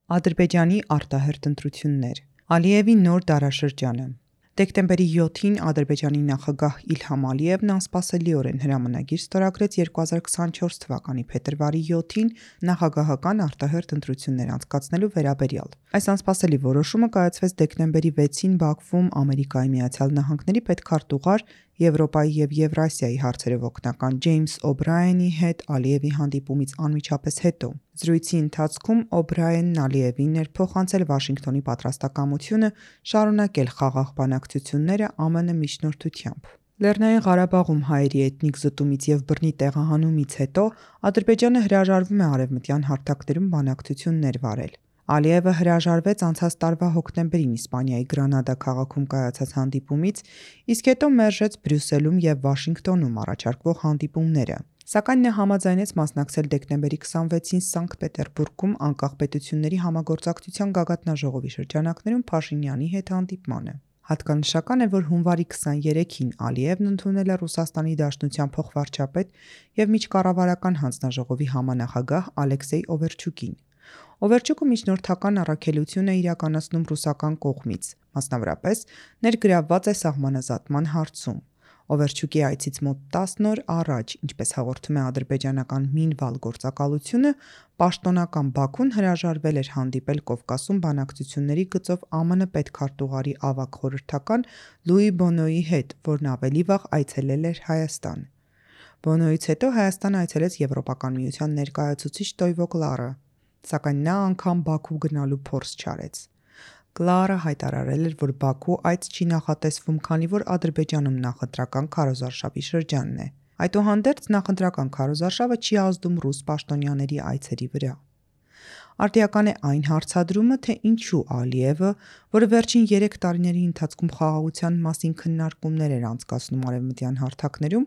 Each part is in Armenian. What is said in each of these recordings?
Ադրբեջանի արտահերթ ընտրություններ, Ալիևի նոր դարաշրջանը։ Դեկտեմբերի 7-ին Ադրբեջանի նախագահ Իլհամ Ալիևն անսպասելիորեն հրամանագիր ստորագրեց 2024 թվականի փետրվարի 7-ին նախագահական արտահերթ ընտրություններ անցկացնելու վերաբերյալ։ Այս անսպասելի որոշումը կայացվեց դեկտեմբերի 6-ին Բաքվում Ամերիկայի Միացյալ Նահանգների պետքարտուղար, Եվրոպայի և Եվրասիայի հարցերով օգնական Ջեյմս Օ'Բրայենի հետ Ալիևի հանդիպումից անմիջապես հետո։ Զրույցի ընթացքում Օ'Բրայենն Ալիևին ներփոխանցել Վաշինգտոնի պատրաստակամությունը շարունակել խաղաղ բանակցությունները ԱՄՆ միջնորդությամբ։ Լեռնային Ղարաբաղում հայերի էթնիկ զտումից և բռնի տեղահանումից հետո Ադրբեջանը հրաժարվում է արևմտյան հարթակներում բանակցություններ վարել։ Ալիևը հրաժարվեց անցած տարվա հոկտեմբերին Իսպանիայի Գրանադա քաղաքում կայացած հանդիպումից, իսկ հետո մերժեց Բրյուսելում և Վաշինգտոնում առաջարկվող հանդիպումները։ Սակայն նա համաձայնեց մասնակցել դեկտեմբերի 26-ին Սանկտ Պետերբուրգում անկախ պետությունների համագործակցության գագաթնաժողովի շրջանակներում Փաշինյանի հետ հանդիպմանը։ Հատկանշական է, որ հունվարի 23-ին Ալիևն ընդունել է Ռուսաստանի Դաշնության փոխվարչապետ և միջկառավարական հանձնաժողովի համանախագահ Ալեքսեյ Օվերչուկին։ Օվերչուկը միջնորդական առաքելություն է իրականացնում ռուսական կողմից, մասնավորապես ներգրավված է սահմանազատման հարցում։ Օվերչուկի այցից մոտ 10 օր առաջ, ինչպես հաղորդում է ադրբեջանական Մինվալ գործակալությունը, պաշտոնական Բաքուն հրաժարվել էր հանդիպել Կովկասում բանակցությունների գծով ԱՄՆ պետքարտուղարի ավագ խորհրդական Լուի Բոնոյի հետ, որն ավելի վաղ այցելել էր Հայաստան։ Բոնոյից հետո Հայաստան այցելեց Եվրոպական միության ներկայացուցիչ Տոյվո Կլարը, սակայն նա անգամ Բաքու գնալու փորձ չարեց։ Կլարը հայտարարել էր, որ Բաքու այց չի նախատեսվում, քանի որ Ադրբեջանում նախընտրական քարոզարշավի շրջանն է։ Այդուհանդերձ նախընտրական քարոզարշավը չի ազդում ռուս պաշտոնյաների այցերի վրա։ Արդիական է այն հարցադրումը, թե ինչու Ալիևը, որը վերջին 3 տարիների ընթացքում խաղաղության մասին քննարկումներ էր անցկացնում արևմտյան հարթակներում,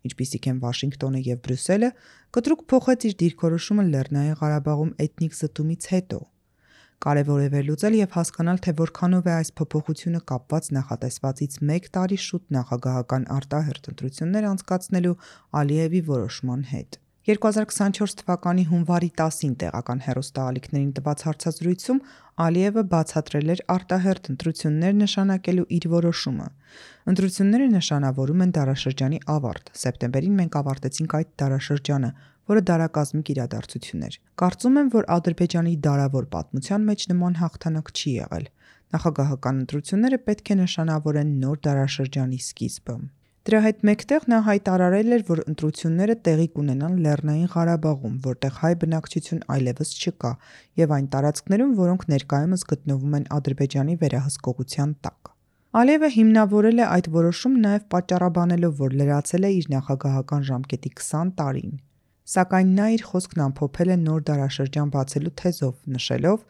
ինչպիսիք են Վաշինգտոնը և Բրյուսելը, կտրուկ փոխեց իր դիրքորոշումը Լեռնային Ղարաբաղում էթնիկ զտումից հետո։ Կարևոր է վերլուծել և հասկանալ, թե որքանով է այս փոփոխությունը կապված նախատեսվածից 1 տարի շուտ նախագահական արտահերթ ընտրություններ անցկացնելու Ալիևի որոշման հետ։ 2024 թվականի հունվարի 10-ին տեղական հեռուստաալիքներին տված հարցազրույցում Ալիևը բացատրել էր արտահերթ ընտրություններ նշանակելու իր որոշումը։ Ընտրությունները նշանավորում են դարաշրջանի ավարտ։ Սեպտեմբերին մենք ավարտեցինք այդ դարաշրջանը, որը դարակազմիկ իրադարձություն էր։ Կարծում եմ, որ Ադրբեջանի դարավոր պատմության մեջ նման հաղթանակ չի եղել։ Նախագահական ընտրությունները պետք է նշանավորեն նոր դարաշրջանի սկիզբը։ Դրա հետ մեկտեղ նա հայտարարել էր, որ ընտրությունները տեղի կունենան Լեռնային Ղարաբաղում, որտեղ հայ բնակչություն այլևս չկա, և այն տարածքներում, որոնք ներկայումս գտնվում են Ադրբեջանի վերահսկողության տակ։ Ալիևը հիմնավորել է այդ որոշումը նաև պատճառաբանելով, որ լրացել է իր նախագահական ժամկետի 20 տարին։ Սակայն նա իր խոսքն ամփոփել է նոր դարաշրջան բացելու թեզով, նշելով.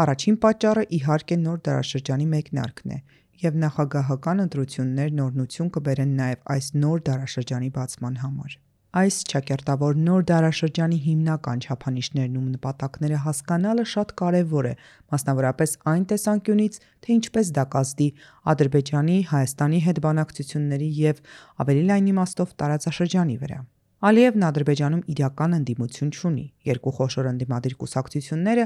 «Առաջին պատճառը իհարկե նոր դարաշրջանի մեկնարկն է, և նախագահական ընտրություններն օրհնություն կբերեն նաև այս նոր դարաշրջանի բացման համար»։ Այս ճակերտավոր նոր դարաշրջանի հիմնական չափանիշներն ու նպատակները հասկանալը շատ կարևոր է, մասնավորապես այն տեսանկյունից, թե ինչպես դա կազդի Ադրբեջանի, Հայաստանի հետ բանակցությունների և, ավելի լայն իմաստով, տարածաշրջանի վրա։ Ալիևն Ադրբեջանում իրական ընդդիմություն չունի։ Երկու խոշոր ընդդիմադիր կուսակցությունները՝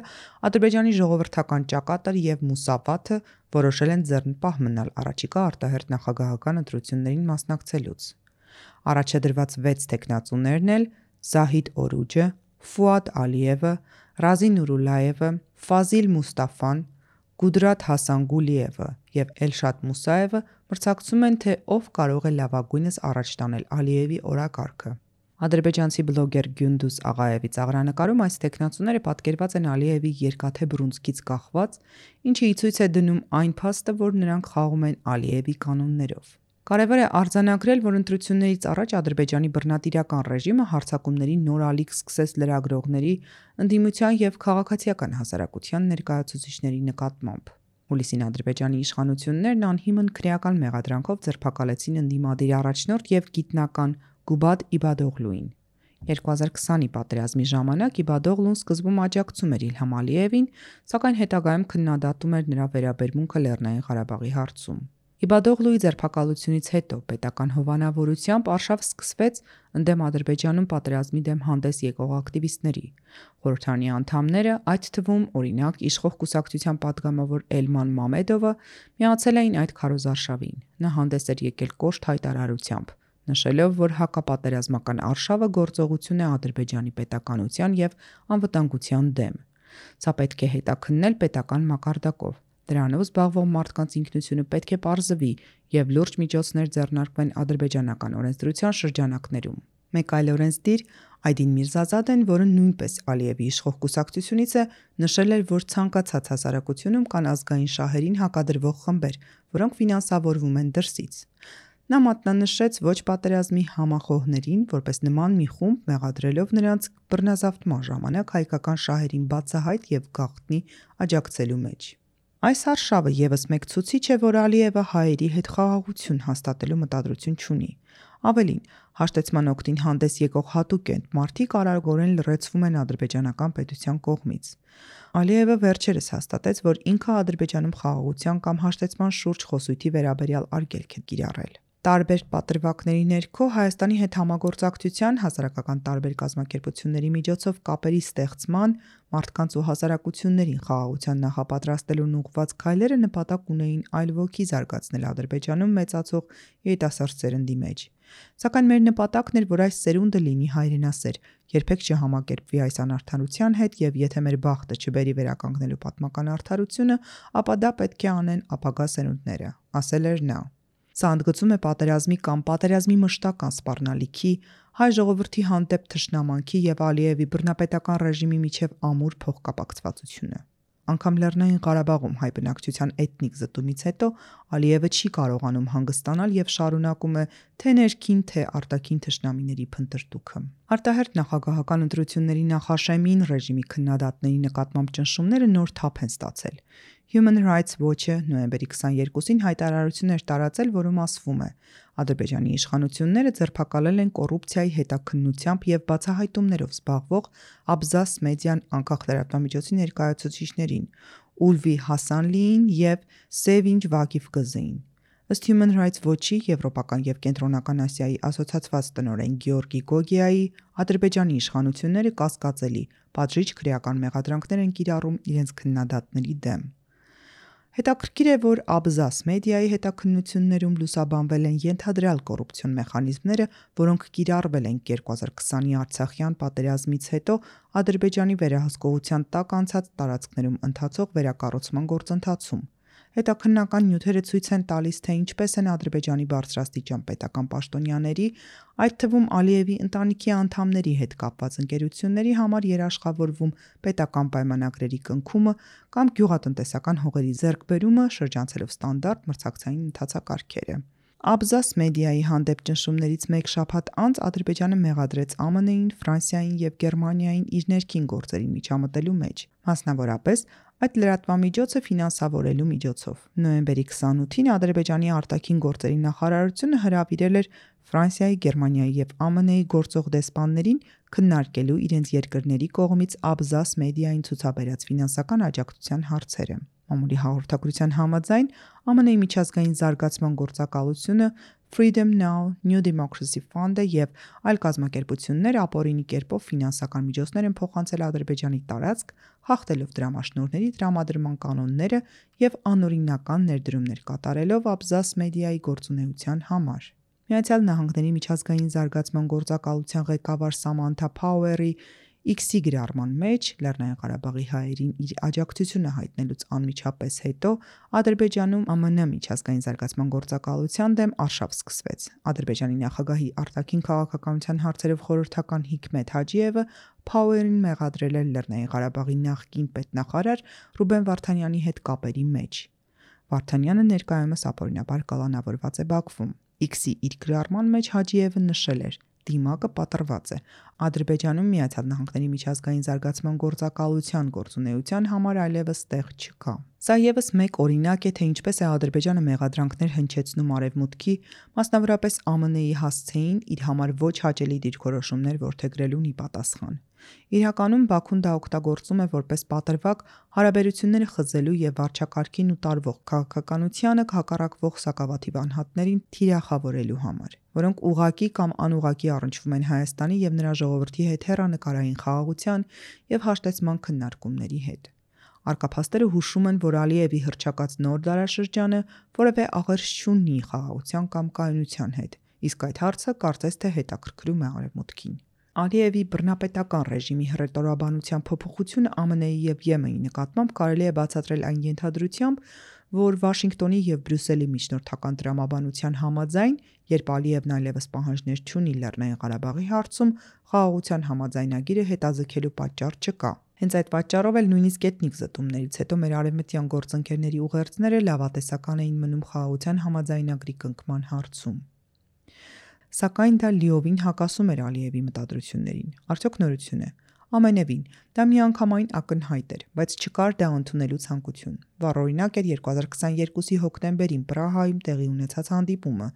Ադրբեջանի ժողովրդական ճակատը և Մուսավաթը, որոշել են ձեռնպահ մնալ առաջիկա արտահերթ նախագահական ընտրություններին մասնակցելուց։ Առաջադրված 6 թեկնածուներն էլ Զահիդ Օրուջը, Ֆուադ Ալիևը, Ռազի Նուրուլլայևը, Ֆազիլ Մուստաֆան, Գուդրաթ Հասանգուլիևը և Էլշադ Մուսաևը մրցակցում են, թե ով կարող է լավագույնս առաջ տանել Ալիևի օրակարգը։ Ադրբեջանցի բլոգեր Գյունդուզ Աղաևի ծաղրանկարում այս թեկնածուները պատկերված են Ալիևի երկաթե բռունցքից կախված, ինչը ի ցույց է դնում այն փաստը, որ նրանք խաղում են Ալիևի կանոններով։ Կարևոր է արձանագրել, որ ընտրություններից առաջ Ադրբեջանի բռնատիրական ռեժիմը հարձակումների նոր ալիք սկսեց լրագրողների, ընդդիմության և քաղաքացիական հասարակության ներկայացուցիչների նկատմամբ։ Հուլիսին Ադրբեջանի իշխանություններն անհիմն քրեական մեղադրանքով ձերբակալեցին ընդդիմադիր առաջնորդ և գիտնական Գուբադ Իբադօղլուին։ 2020-ի պատերազմի ժամանակ Իբադօղլուն սկզբում աջակցում էր Իլհամ Ալիևին, սակայն հետագայում քննադատում էր նրա վերաբերմունքը Լեռնային Ղարաբաղի հարցում։ Իբադօղլուի ձերբակալությունից հետո պետական հովանավորությամբ արշավ սկսվեց ընդդեմ Ադրբեջանում պատերազմի դեմ հանդես եկող ակտիվիստների։ Խորհրդարանի անդամները, այդ թվում օրինակ իշխող կուսակցության падգամավոր Էլման Մամեդովը, միացել էին այդ քարոզարշավին։ Նա հանդես էր եկել կոշտ հայտարարությամբ, նշելով, որ հակապատերազմական արշավը գործողություն է Ադրբեջանի պետականության և անվտանգության դեմ։ Սա պետք է հետաքննել պետական մակարդակով։ Դրանով զբաղվող մարդկանց ինքնությունը պետք է պարզվի և լուրջ միջոցներ ձեռնարկվեն ադրբեջանական օրենսդրության շրջանակներում։ Մեկ այլ օրենսդիր Այդին Միրզազադեն, որը նույնպես Ալիևի իշխող կուսակցությունից է, նշել էր, որ ցանկացած հասարակությունում կան ազգային շահերին հակադրվող խմբեր, որոնք ֆինանսավորվում են դրսից։ Նա մատնանշեց ոչ պատերազմի համախոհներին, որպես նման մի խումբ, մեղադրելով նրանց բռնազավթման ժամանակ հայկական շահերին բացահայտ և գաղտնի աջակցելու մեջ։ Այս արշավը ևս մեկ ցուցիչ է, որ Ալիևը հայերի հետ խաղաղություն հաստատելու մտադրություն չունի։ Ավելին, հաշտեցման օգտին հանդես եկող հատուկ մարդիկ արագորեն լռեցվում են ադրբեջանական պետության կողմից։ Ալիևը վերջերս հաստատեց, որ ինքը Ադրբեջանում խաղաղության կամ հաշտեցման շուրջ խոսույթի վերաբերյալ արգելք է կիրառել։ Տարբեր պատրվակների ներքո Հայաստանի հետ համագործակցության, հասարակական տարբեր կազմակերպությունների միջոցով կապերի ստեղծման, մարդկանց ու հասարակություններին խաղաղության նախապատրաստելուն ուղղված քայլերը նպատակ ունեին այլ ոգի զարգացնել Ադրբեջանում մեծացող երիտասարդ սերնդի մեջ։ Սակայն մեր նպատակն էր, որ այս սերունդը լինի հայրենասեր, երբեք չհամակերպվի այս անարդարության հետ և եթե մեր բախտը չբերի վերականգնելու պատմական արդարությունը, ապա դա պետք է անեն ապագա սերունդները, ասել էր նա։ Սա ընդգծում է պատերազմի կամ պատերազմի մշտական սպառնալիքի, հայ ժողովրդի հանդեպ թշնամանքի և Ալիևի բռնապետական ռեժիմի միջև ամուր փոխկապակցվածությունը։ Անգամ Լեռնային Ղարաբաղում հայ բնակչության էթնիկ զտումից հետո Ալիևը չի կարողանում հանգստանալ և շարունակում է թե ներքին, թե արտաքին թշնամիների փնտրտուքը։ Արտահերթ նախագահական ընտրությունների նախաշեմին ռեժիմի քննադատների նկատմամբ ճնշումները նոր թափ են ստացել։ Human Rights Watch-ը նոյեմբերի 22-ին հայտարարություն էր տարածել, որում ասվում է. Ադրբեջանի իշխանությունները ձերբակալել են կոռուպցիայի հետաքննությամբ և բացահայտումներով զբաղվող Աբզաս մեդիան անկախ լրատվամիջոցի ներկայացուցիչներին Ուլվի Հասանլիին և Սեվինջ Վակիֆ Կզեին։ Ըստ Human Rights Watch-ի Եվրոպական և Կենտրոնական Ասիայի ասոցիացված տնօրեն Գեորգի Գոգիայի, Ադրբեջանի իշխանությունները կասկածելի, պատժիչ քրեական մեղադրանքներ են կիրառում իրենց քննադատների դեմ։ Հետաքրքիր է, որ Աբզաս մեդիայի հետաքննություններում լուսաբանվել են ենթադրյալ կոռուպցիոն մեխանիզմները, որոնք կիրառվել են 2020-ի Արցախյան պատերազմից հետո Ադրբեջանի վերահսկողության տակ անցած տարածքներում ընթացող վերակառուցման գործընթացում։ Հետաքննական նյութերը ցույց են տալիս, թե ինչպես են Ադրբեջանի բարձրաստիճան պետական պաշտոնյաների, այդ թվում Ալիևի ընտանիքի անդամների հետ կապված ընկերությունների համար երաշխավորվում պետական պայմանագրերի կնքումը կամ գյուղատնտեսական հողերի ձեռքբերումը, շրջանցելով ստանդարտ մրցակցային ընթացակարգերը։ Աբզաս մեդիայի հանդեպ ճնշումներից մեկ շաբաթ անց Ադրբեջանը մեղադրեց ԱՄՆ-ին, Ֆրանսիային և Գերմանիային իր ներքին գործերին միջամտելու մեջ, մասնավորապես այդ լրատվամիջոցը ֆինանսավորելու միջոցով։ Նոյեմբերի 28-ին Ադրբեջանի արտաքին գործերի նախարարությունը հրավիրել էր Ֆրանսիայի, Գերմանիայի և ԱՄՆ-ի գործող դեսպաններին քննարկելու իրենց երկրների կողմից Աբզաս մեդիային ցուցաբերած ֆինանսական աջակցության հարցերը։ Մամուլի հաղորդագրության համաձայն ԱՄՆ-ի միջազգային զարգացման գործակալությունը, Freedom Now, New Democracy Fund-ը և այլ կազմակերպություններ ապօրինի կերպով ֆինանսական միջոցներ են փոխանցել Ադրբեջանի տարածք, խախտելով դրամաշնորհների տրամադրման կանոնները և անօրինական ներդրումներ կատարելով Աբզաս մեդիայի գործունեության համար։ Միացյալ Նահանգների միջազգային զարգացման գործակալության ղեկավար Սամանթա Փաուերի X-ի գրառման մեջ Լեռնային Ղարաբաղի հայերին իր աջակցությունը հայտնելուց անմիջապես հետո Ադրբեջանում ԱՄՆ միջազգային զարգացման գործակալության դեմ արշավ սկսվեց։ Ադրբեջանի նախագահի արտաքին քաղաքականության հարցերով խորհրդական Հիքմեթ Հաջիևը Փաուերին մեղադրել էր Լեռնային Ղարաբաղի նախկին պետնախարար Ռուբեն Վարդանյանի հետ կապերի մեջ։ Վարդանյանը ներկայումս ապօրինաբար կալանավորված է Բաքվում։ X-ի իր գրառման մեջ Հաջիևը նշել էր. Դիմակը պատռված է։ Ադրբեջանում Միացյալ Նահանգների միջազգային զարգացման գործակալության գործունեության համար այլևս տեղ չկա։ Սա ևս մեկ օրինակ է, թե ինչպես է Ադրբեջանը մեղադրանքներ հնչեցնում Արևմուտքի, մասնավորապես ԱՄՆ-ի հասցեին իր համար ոչ հաճելի դիրքորոշումներ որդեգրելուն ի պատասխան։ Իրականում Բաքուն դա օգտագործում է որպես պատրվակ հարաբերությունները խզելու եւ վարչակարգին ու տարվող քաղաքականությանը հակառակվող սակավաթիվ անհատներին թիրախավորելու համար, որոնք ուղղակի կամ անուղղակի առնչվում են Հայաստանի եւ նրա ժողովրդի հետ հեռանկարային խաղաղության եւ հաշտեցման քննարկումների հետ։ Արկափաստերը հուշում են, որ Ալիևի հռչակած նոր դարաշրջանը որևէ աղերս չունի խաղաղության կամ կայունության հետ, իսկ այդ հարցը կարծես թե հետաքրքրում է Արևմուտքին։ Ալիևի բռնապետական ռեժիմի հռետորաբանության փոփոխությունը ԱՄՆ-ի եւ ԵՄ-ի նկատմամբ կարելի է բացատրել այն ենթադրությամբ, որ Վաշինգտոնի եւ Բրյուսելի միջնորդական տրամաբանության համաձայն, երբ Ալիևն այլևս պահանջներ չունի Լեռնային Ղարաբաղի հարցում, խաղաղության համաձայնագիրը հետաձգելու պատճառ չկա։ Հենց այդ պատճառով էլ նույնիսկ էթնիկ զտումներից հետո մեր արևմտյան գործընկերների ուղերձները լավատեսական էին մնում խաղաղության համաձայնագրի կնքման հարցում։ Սակայն դա լիովին հակասում էր Ալիևի մտադրություններին։ Արդյոք նորություն է։ Ամենևին, դա միանգամայն ակնհայտ էր, բայց չկար դա ընդունելու ցանկություն։ Վառօրինակ էր 2022-ի հոկտեմբերին Պրահայում տեղի ունեցած հանդիպումը,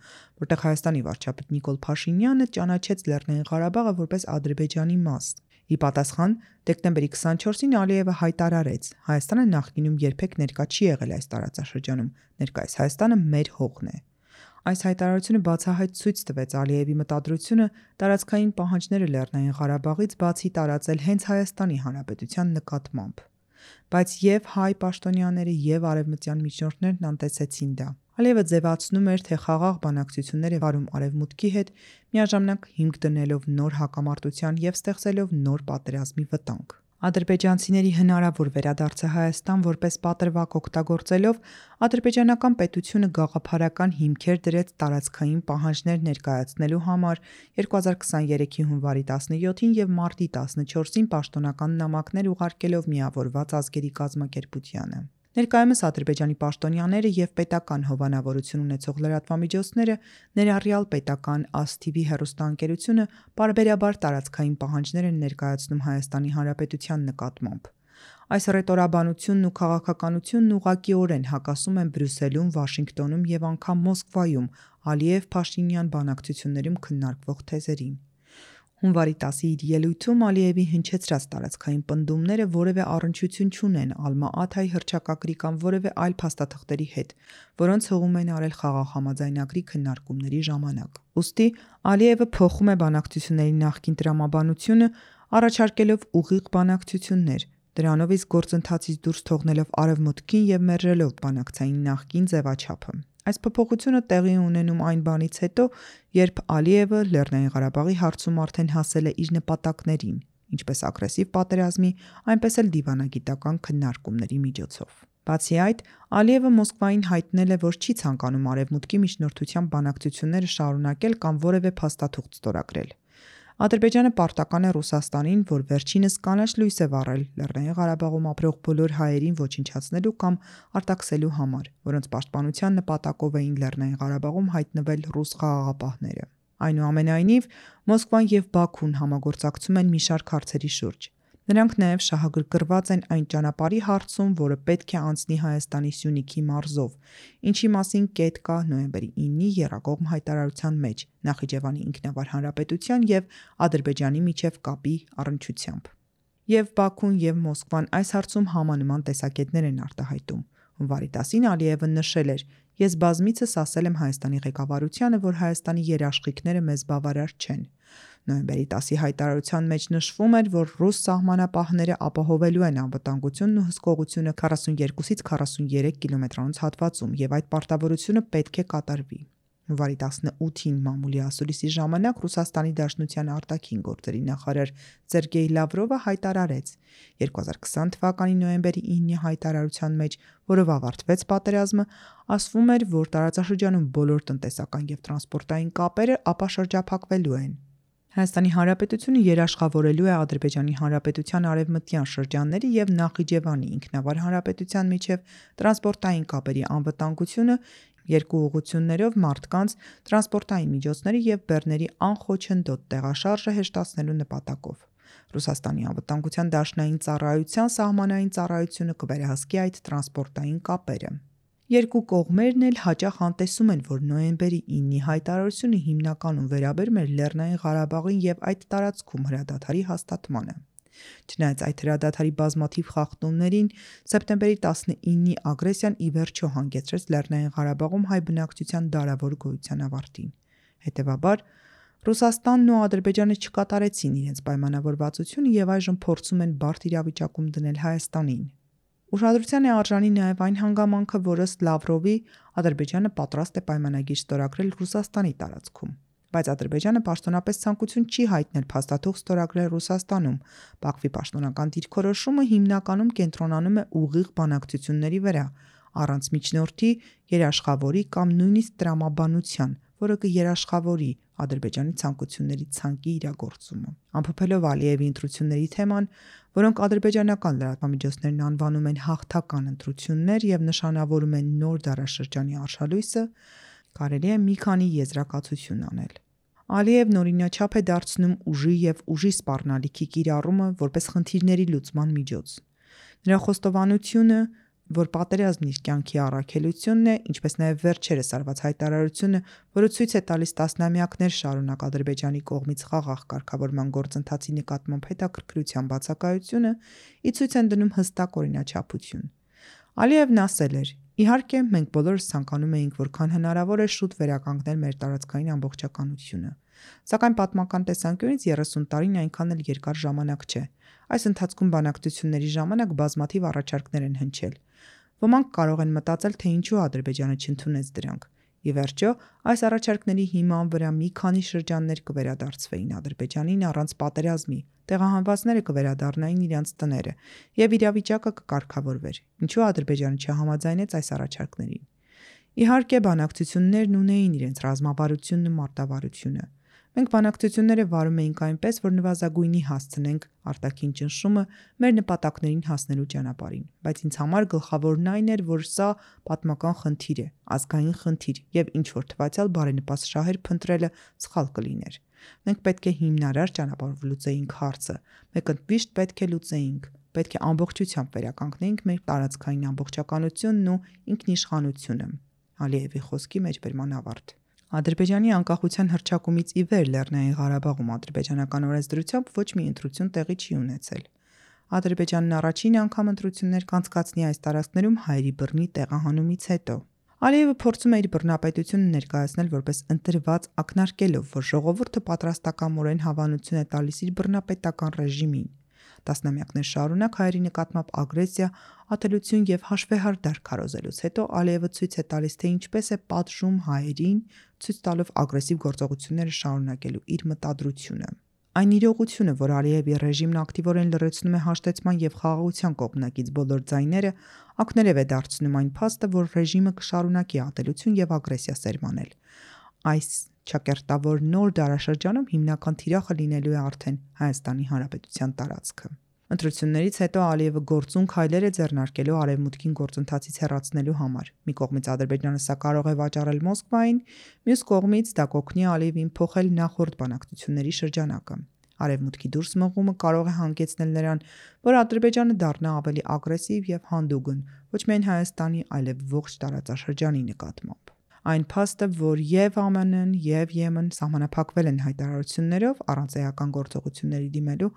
որտեղ Հայաստանի վարչապետ Նիկոլ Փաշինյանը ճանաչեց Լեռնային Ղարաբաղը որպես Ադրբեջանի մաս։ Ի պատասխան, դեկտեմբերի 24-ին Ալիևը հայտարարեց. Հայաստանը նախկինում երբեք ներկա չի եղել այս տարածաշրջանում, ներկայիս Հայաստանը մեր հողն է։ Այս հայտարարությունը բացահայտ ցույց տվեց Ալիևի մտադրությունը տարածքային պահանջները Լեռնային Ղարաբաղից բացի տարածել հենց Հայաստանի Հանրապետության նկատմամբ։ Բայց եւ հայ պաշտոնյաները եւ արևմտյան միջնորդներն անտեսեցին դա։ Ալիևը ձևացնում էր, թե խաղաղ բանակցություններ է վարում Արևմուտքի հետ, միաժամանակ հիմք դնելով նոր հակամարտության եւ ստեղծելով նոր պատերազմի վտանգ։ Ադրբեջանցիների հնարավոր վերադարձը Հայաստան որպես պատրվակ օգտագործելով ադրբեջանական պետությունը գաղափարական հիմքեր դրեց տարածքային պահանջներ ներկայացնելու համար 2023-ի հունվարի 17-ին եւ մարտի 14-ին պաշտոնական նամակներ ուղարկելով Միավորված ազգերի կազմակերպությանը։ Ներկայումս Ադրբեջանի պաշտոնյաները եւ պետական հովանավորություն ունեցող լրատվամիջոցները, ներառյալ պետական ASTV հեռուստաընկերությունը, բարբերաբար տարածքային պահանջներ են ներկայացնում Հայաստանի Հանրապետության նկատմամբ։ Այս ռետորաբանությունն ու քաղաքականությունն ուղղակիորեն հակասում են Բրյուսելում, Վաշինգտոնում եւ անգամ Մոսկվայում Ալիև-Փաշինյան բանակցություններում քննարկվող թեզերին։ Հունվարի 10-ի իր ելույթում Ալիևի հնչեցրած տարածքային պնդումները որևէ առնչություն չունեն Ալմա-Աթայի հռչակագրի կամ որևէ այլ փաստաթղթերի հետ, որոնց հողում են արել խաղաղ համաձայնագրի քննարկումների ժամանակ։ Ուստի Ալիևը փոխում է բանակցությունների նախկին տրամաբանությունը, առաջարկելով ուղիղ բանակցություններ, դրանով իսկ գործընթացից դուրս թողնելով Արևմուտքին եւ մերժելով բանակցային նախկին ձևաչափը։ Այս փոփոխությունը տեղի ունենում այն բանից հետո, երբ Ալիևը Լեռնային Ղարաբաղի հարցում արդեն հասել է իր նպատակներին, ինչպես ագրեսիվ պատերազմի, այնպես էլ դիվանագիտական քննարկումների միջոցով։ Բացի այդ, Ալիևը Մոսկվային հայտնել է, որ չի ցանկանում Արևմուտքի միջնորդությամբ բանակցությունները շարունակել կամ որևէ փաստաթուղթ ստորագրել։ Ադրբեջանը պարտական է Ռուսաստանին, որ վերջինս կանաչ լույս է վառել Լեռնային Ղարաբաղում ապրող բոլոր հայերին ոչնչացնելու կամ արտաքսելու համար, որոնց պաշտպանության նպատակով էին Լեռնային Ղարաբաղում հայտնվել ռուս խաղաղապահները։ Այնուամենայնիվ, Մոսկվան եւ Բաքուն համագործակցում են մի շարք հարցերի շուրջ։ Նրանք նաև շահագրգռված են այն ճանապարհի հարցում, որը պետք է անցնի Հայաստանի Սյունիքի մարզով, ինչի մասին կետ կա նոյեմբերի 9-ի եռակողմ հայտարարության մեջ Նախիջևանի ինքնավար հանրապետության եւ Ադրբեջանի միջև կապի առնչությամբ։ Եվ Բաքուն եւ Մոսկվան այս հարցում համանման տեսակետներ են արտահայտում։ Հունվարի 10-ին Ալիևը նշել էր. Ես բազմիցս ասել եմ Հայաստանի ղեկավարությանը, որ Հայաստանի երաշխիքները մեզ բավարար չեն։ Նոյեմբերի 10-ի հայտարարության մեջ նշվում էր, որ ռուս սահմանապահները ապահովելու են անվտանգությունն ու հսկողությունը 42-ից 43 կիլոմետրանոց հատվածում եւ այդ պարտավորությունը պետք է կատարվի։ Հունվարի 18-ին մամուլի ասուլիսի ժամանակ Ռուսաստանի Դաշնության արտաքին գործերի նախարար Սերգեյ Լավրովը հայտարարեց 2020 թվականի նոյեմբերի 9-ի հայտարարության մեջ, որով ավարտվեց պատերազմը, ասվում էր, որ տարածաշրջանում բոլոր տնտեսական եւ տրանսպորտային կապերը ապաշրջափակվելու են։ Հայաստանի Հանրապետությունը երաշխավորելու է Ադրբեջանի Հանրապետության արևմտյան շրջանների եւ Նախիջևանի ինքնավար հանրապետության միջև տրանսպորտային կապերի անվտանգությունը երկու ուղղություններով մարդկանց, տրանսպորտային միջոցների եւ բեռների անխոչնդոտ տեղաշարժը հեշտացնելու նպատակով։ Ռուսաստանի անվտանգության դաշնային ծառայության սահմանային ծառայությունը կվերահսկի այդ տրանսպորտային կապերը։ Երկու կողմերն էլ հաճախ անտեսում են, որ նոյեմբերի 9-ի հայտարարությունը հիմնականում վերաբերում էր Լեռնային Ղարաբաղին եւ այդ տարածքում հրադադարի հաստատմանը։ Չնայած այդ հրադադարի բազմաթիվ խախտումներին, սեպտեմբերի 19-ի ագրեսիան ի վերջո հանգեցրեց Լեռնային Ղարաբաղում հայ բնակչության դարավոր գոյության ավարտին։ Հետևաբար, Ռուսաստանն ու Ադրբեջանը չկատարեցին իրենց պայմանավորվածությունը եւ այժմ փորձում են բարդ իրավիճակում դնել Հայաստանին։ Ուշադրության է արժանի նաև այն հանգամանքը, որ ըստ Լավրովի Ադրբեջանը պատրաստ է պայմանագիր ստորագրել Ռուսաստանի տարածքում, բայց Ադրբեջանը պաշտոնապես ցանկություն չի հայտնել փաստաթուղթ ստորագրել Ռուսաստանում։ Բաքվի պաշտոնական դիրքորոշումը հիմնականում կենտրոնանում է ուղիղ բանակցությունների վրա, առանց միջնորդի, երաշխավորի կամ նույնիսկ տրամաբանության, որը կերաշխավորի Ադրբեջանի ցանկությունների ցանկի իրագործումը։ Ամփոփելով Ալիևի ընտրությունների թեման, որոնք ադրբեջանական լրատվամիջոցներն անվանում են հաղթական ընտրություններ եւ նշանավորում են նոր դարաշրջանի արշալույսը, կարելի է մի քանի եզրակացություն անել։ Ալիևն օրինաչափ է դարձնում ուժի եւ ուժի սպառնալիքի կիրառումը որպես խնդիրների լուծման միջոց։ Նրա խոստովանությունը, որ պատերազմն իր կյանքի առաքելությունն է, ինչպես նաև վերջերս արված հայտարարությունը, որը ցույց է տալիս տասնամյակներ շարունակ Ադրբեջանի կողմից խաղաղ կարգավորման գործընթացի նկատմամբ հետաքրքրության բացակայությունը, ի ցույց են դնում հստակ օրինաչափություն։ Ալիևն ասել էր. «Իհարկե, մենք բոլորս ցանկանում էինք որքան հնարավոր է շուտ վերականգնել մեր տարածքային ամբողջականությունը, սակայն պատմական տեսանկյունից 30 տարին այնքան էլ երկար ժամանակ չէ։ Այս ընթացքում բանակցությունների ժամանակ բազմաթիվ առաջարկներ են հնչել։ Ոմանք կարող են մտածել, թե ինչու Ադրբեջանը չընդունեց դրանք։ Ի վերջո, այս առաջարկների հիման վրա մի քանի շրջաններ կվերադարձվեին Ադրբեջանին առանց պատերազմի, տեղահանվածները կվերադառնային իրենց տները, եւ իրավիճակը կկարգավորվեր։ Ինչու Ադրբեջանը չհամաձայնեց այս առաջարկներին։ Իհարկե, բանակցություններն ունեին իրենց ռազմավարությունն ու մարտավարությունը։ Մենք բանակցությունները վարում էինք այնպես, որ նվազագույնի հասցնենք արտաքին ճնշումը մեր նպատակներին հասնելու ճանապարհին, բայց ինձ համար գլխավորն այն էր, որ սա պատմական խնդիր է, ազգային խնդիր, եւ ինչ որ թվացial բարենպաստ շահեր փնտրելը սխալ կլիներ։ Մենք պետք է հիմնարար ճանապարհով լուծեինք հարցը, մենք ընդմիշտ պետք է լուծեինք, պետք է ամբողջությամբ վերականգնեինք մեր տարածքային ամբողջականությունն ու ինքնիշխանությունը։ Ալիևի խոսքի մեջբերման ավարտ։ Ադրբեջանի անկախության հռչակումից ի վեր Լեռնային Ղարաբաղում ադրբեջանական օրենսդրությամբ ոչ մի ընտրություն տեղի չի ունեցել։ Ադրբեջանն առաջին անգամ ընտրություններ կանցկացնի այս տարածքներում հայերի բռնի տեղահանումից հետո։ Ալիևը փորձում է իր բռնապետությունը ներկայացնել որպես ընտրված, ակնարկելով, որ ժողովուրդը պատրաստակամորեն հավանություն է տալիս իր բռնապետական ռեժիմին։ Տասնամյակներ շարունակ հայերի նկատմամբ ագրեսիա, ատելություն եւ հաշվեհարդար քարոզելուց հետո Ալիևը ցույց է տալիս, թե ինչպես է պատժում հայերին, ցույց տալով ագրեսիվ գործողությունները շարունակելու իր մտադրությունը։ Այն իրողությունը, որ Ալիևի ռեժիմն ակտիվորեն լրացնում է հաշտեցման եւ խաղաղության կողմնակից բոլոր ձայները, ակներև է դարձնում այն փաստը, որ ռեժիմը կշարունակի ատելություն եւ ագրեսիա սերմանել։ Այս ճակերտավոր նոր դարաշրջանում հիմնական թիրախը լինելու է արդեն Հայաստանի Հանրապետության տարածքը։ Ընտրություններից հետո Ալիևը գործուն քայլեր է ձեռնարկելու արևմուտքին գործընթացից հեռացնելու համար։ Մի կողմից Ադրբեջանը սա կարող է վաճառել Մոսկվային, մյուս կողմից դա կօգնի Ալիևին փոխել նախորդ բանակցությունների շրջանակը։ Արևմուտքի դուրս մղումը կարող է հանգեցնել նրան, որ Ադրբեջանը դառնա ավելի ագրեսիվ եւ հանդուգն, ոչ միայն Հայաստանի, այլև ողջ տարածաշրջանի նկատմամբ։ Այն փաստը, որ եւ ԱՄՆ-ն եւ Եմեն սահմանափակվել են հայտարարություններով առանց էական գործողությունների դիմելու,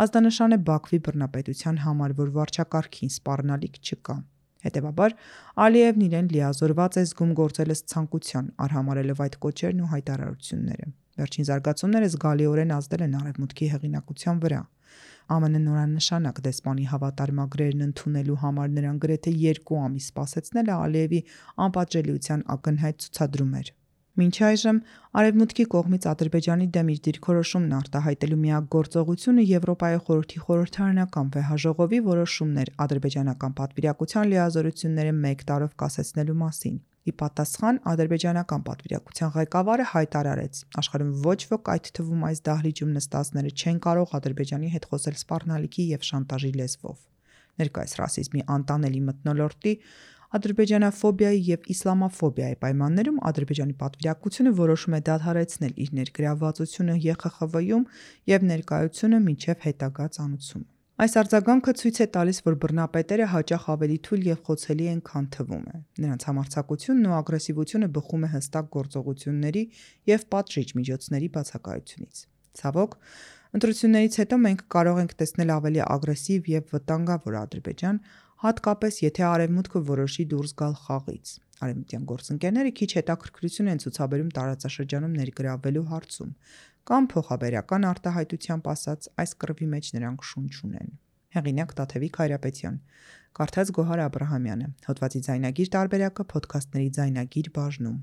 ազդանշան է Բաքվի բռնապետության համար, որ վարչակարգին սպառնալիք չկա։ Հետևաբար, Ալիևն իրեն լիազորված է զգում գործել ըստ ցանկության, արհամարելով այդ կոչերն ու հայտարարությունները։ Վերջին զարգացումները զգալիորեն ազդել են արևմուտքի հեղինակության վրա։ ԱՄՆ նորանշանակ դեսպանի հավատարմագրերն ընդունելու համար նրան գրեթե 2 ամիս սպասեցնելը Ալիևի անպատժելիության ակնհայտ ցուցադրում էր։ Մինչ այժմ Արևմուտքի կողմից Ադրբեջանի դեմ իր դիրքորոշումն արտահայտելու միակ գործողությունը Եվրոպայի խորհրդի խորհրդարանական վեհաժողովի որոշումն էր ադրբեջանական պատվիրակության լիազորությունները 1 տարով կասեցնելու մասին։ Ի պատասխան ադրբեջանական պատվիրակության ղեկավարը հայտարարեց. աշխարհում ոչ ոք, այդ թվում այս դահլիճում նստածները, չեն կարող Ադրբեջանի հետ խոսել սպառնալիքի եւ շանտաժի լեզվով։ Ներկայիս ռասիզմի անտանելի մթնոլորտի, ադրբեջանաֆոբիայի եւ իսլամաֆոբիայի պայմաններում Ադրբեջանի պատվիրակությունը որոշում է դադարեցնել իր ներգրավվածությունը ԵԽԽՎ-ում եւ ներկայությունը մինչեւ հետագա ծանուցում։ Այս արձագանքը ցույց է տալիս, որ բռնապետերը հաճախ ավելի թույլ եւ խոցելի են, քան թվում է։ Նրանց համարձակությունն ու ագրեսիվությունը բխում է հստակ գործողությունների եւ պատժիչ միջոցների բացակայությունից։ Ցավոք, Ընտրություններից հետո մենք կարող ենք տեսնել ավելի ագրեսիվ եւ վտանգավոր Ադրբեջան, հատկապես եթե Արևմուտքը որոշի դուրս գալ խաղից։ Արևմտյան գործընկերները քիչ հետաքրքրություն են ցուցաբերում տարածաշրջանում ներգրավվելու հարցում, կամ փոխաբերական արտահայտությամբ ասած, այս կռվի մեջ նրանք շունչ ունեն։ Հեղինակ Տաթևիկ Հայրապետյան, կարդաց Գոհար Աբրահամյանը, հոդվածի ձայնագիր տարբերակը Փոդքասթների ձայնագիր բաժնում։